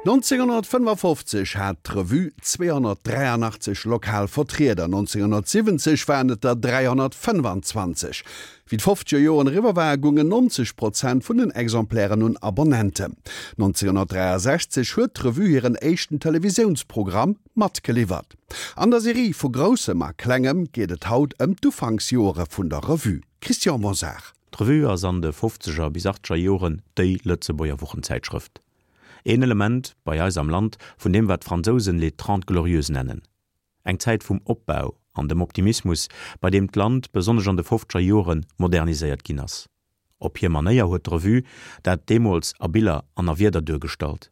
1955 hat d'Revue 283 lokal Vertrieder, 1970 waren et der 325. Wéi d'fofzeger Joren eriwwer waren, goungen 90 Prozent vun den Exemplairen un Abonnenten. 1963 huet d'Revue hiren éischten Televisiounsprogramm matgeliwwert. An der Serie Vu Groussem a Klengem geet et haut ëm d'Ufanksjoere vun der Revue. Christian Mosar. D'Revue ass an de fofzeger bis achteger Joren déi Lëtzebuerger Wochenzäitschrëft. Een Element bei eis am Land vun deem wat d'Fransousen les Trente Glorieuses nennen. Eng Zäit vum Opbau an dem Optimismus, bei deem d'Land, besonnesch an de fofzeger Joren, moderniséiert ginn ass. Op hir Manéier huet d'Revue dat deemools a Biller an a Wierder duergestallt.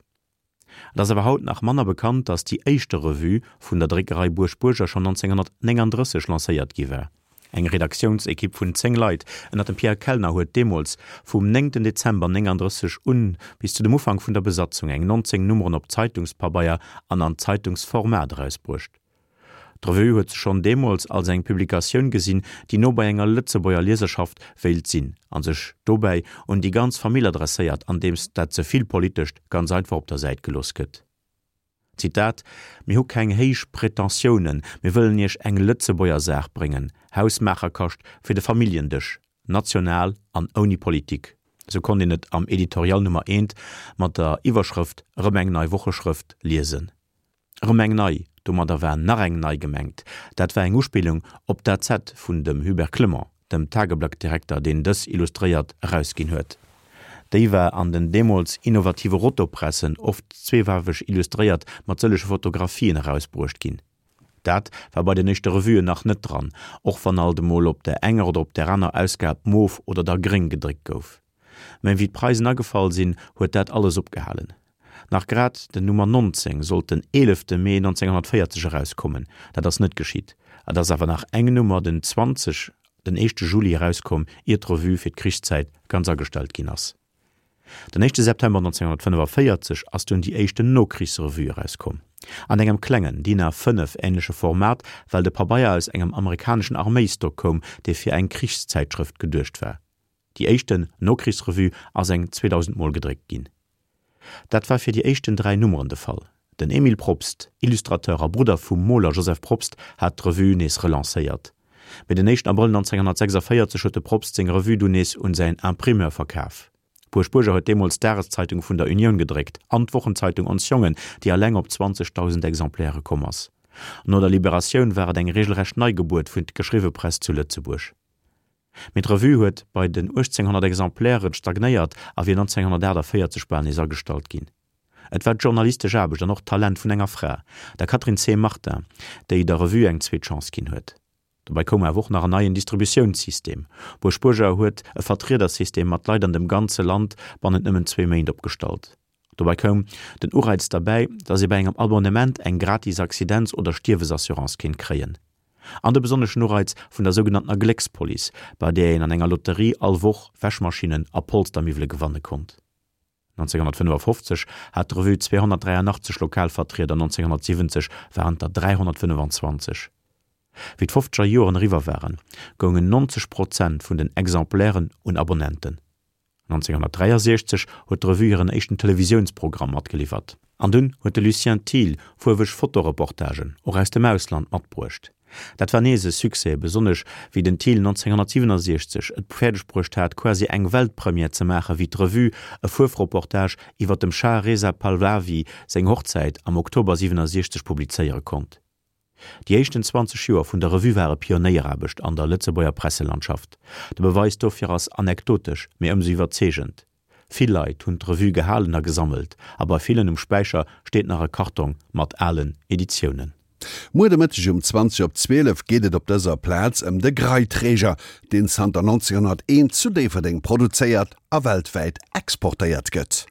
Et ass awer haut nach manner bekannt, datt déi éischte Revue vun der Dréckerei Buerg-Buerger schonn 1939 lancéiert gi war. Eng Redaktiounsekipp vun 10 Leit ënner dem Pierre Kellner huet deemools vum 9 Dezember 39 un bis zu dem Ufank vun der Besatzung eng 19 Nummeren op Zeitungspabeier an an Zeitungsformat erausbruecht. D'Revue huet sech schonn deemools als eng Publikatioun gesinn, déi no bei enger Lëtzebuerger Lieserschaft wéilt sinn a sech dobäi un déi ganz Famill adresséiert, andeems dat ze vill Politescht ganz einfach op der Säit gelooss gëtt. Zitat, Mir hu keng héich Pretentiounen, mir wëllen Iech eng Lëtzebuerger Saach bréngen, Hausmaacherkascht fir de Familljendësch, national an ouni Politik. Sou konnt een et am Editorial Nummer eent mat der Iwwerschrëft Erëm eng nei Wocheschrëft liesen. Erëm eng nei, domadder war nach eng nei gemengt. Dat war eng Uspillung op d'AZ vun dem Hubert Clement, dem Tageblatt-Direkter, deen dës illustréiert erausginn huet. Déi war an den deemools innovative Rotopressen, oft zweefaarweg illustréiert mat sëllege Fotografien, erausbruecht ginn. Dat war bei den éischte Revuen nach net dran, och wann alt emol op der enger oder op der aner Ausgab mof oder da gréng gedréckt gouf. Mä wéi d'Preisen agefall sinn, huet dat alles opgehalen. Nach grad den Nummer 19 sollt den 11 Mee 1940 erauskommen, dat ass net geschitt. Et ass awer nach eng Nummer den 20 den éischte Juli erauskomm, ier d'Revue fir d'Krichszäit ganz agestallt ginn ass. Den éischte September 1945 ass dunn déi éischten Nokrichsrevue erauskomm. An engem klengen, DIN A 5 änleche Format, well de Pabeier aus engem amerikaneschen Arméistock koum, dee fir eng Krichszäitschrëft geduecht war. Déi éischten Nokrichsrevue ass eng 2000 Mol gedréckt ginn. Dat war fir déi éischten 3 Nummeren de Fall. Den Emile Probst, Illustrateur a Brudder vum Moler Joseph Probst, hat d'Revue nees relancéiert. Mee den éischten Abrëll 1946 huet de Probst seng Revue dunn nees un säin Imprimeur verkaf. D'Buerg Buerger huet deemools d'Dageszeitung vun der Unioun gedréckt an d'Wochenzeitung Ons Jongen, déi alleng op 20.000 Exemplaire komm ass. No der Liberatioun war et eng regelrecht Neigebuert vun d'geschriwwe Press zu Lëtzebuerg. Mee d'Revue huet bei den 1.800 Exemplairen stagnéiert a wier 1948 bal nees agestallt ginn. Et war d'journalistesch Aarbecht an och d'Talent vun enger Fra, der Catherine C. Martin, déi der Revue eng zweet Chance ginn huet. Dobäi koum awer och nach en neien Distributiounssystem. Buerg-Buerger huet e Vertriedersystem mat Leit an dem ganze Land bannent nëmmen zwee Méint opgestallt. Dobäi koum den Ureiz derbäi, datt ee bei engem Abonnement eng gratis Accidents oder Stierwesassurance kéint kréien. An de besonneschen Ureiz vun der sougenanntener Gléckspolice, bei där een an enger Lotterie all Woch Wäschmaschinnen a Polstermiwwele gewanne konnt. 1955 hat d'Revue 283 Lokalvertrieder, 1970 waren et der 325. Wéi d'fofzeger Joren eriwwer waren, goungen 90 Prozent vun den Exemplairen un Abonnenten. 1963 huet d'Revue hiren éischten Televisiounsprogramm matgeliwwert. An dunn huet de Lucien Thiel fuerweg Fotoreportagen, och aus dem Ausland, matbruecht. Dat war nees e Succès, besonnesch wéi den Thiel 1967 et fäerdeg bruecht hat, quasi eng Weltpremière ze maachen, wéi d'Revue e Fuerfreportage iwwer dem Schah Reza Pahlavi seng Hochzäit am Oktober 67 publizéiere konnt. Déi éischten 20 Joer vun der Revue ware Pionéieraarbecht an der Lëtzebuerger Presselandschaft. De Beweis dofir ass anekdotesch, mee ëmsou iwwerzeegend, Vill Leit hunn d'Revue gehalen a gesammelt, a bei villen um Späicher steet nach e Kartong mat alen Editiounen. Muer de Mëtteg um 20 op 12 geet et op dëser Plaz ëm de Graiträger, deen zanter 1901 zu Déifferdeng produzéiert a weltwäit exportéiert gëtt.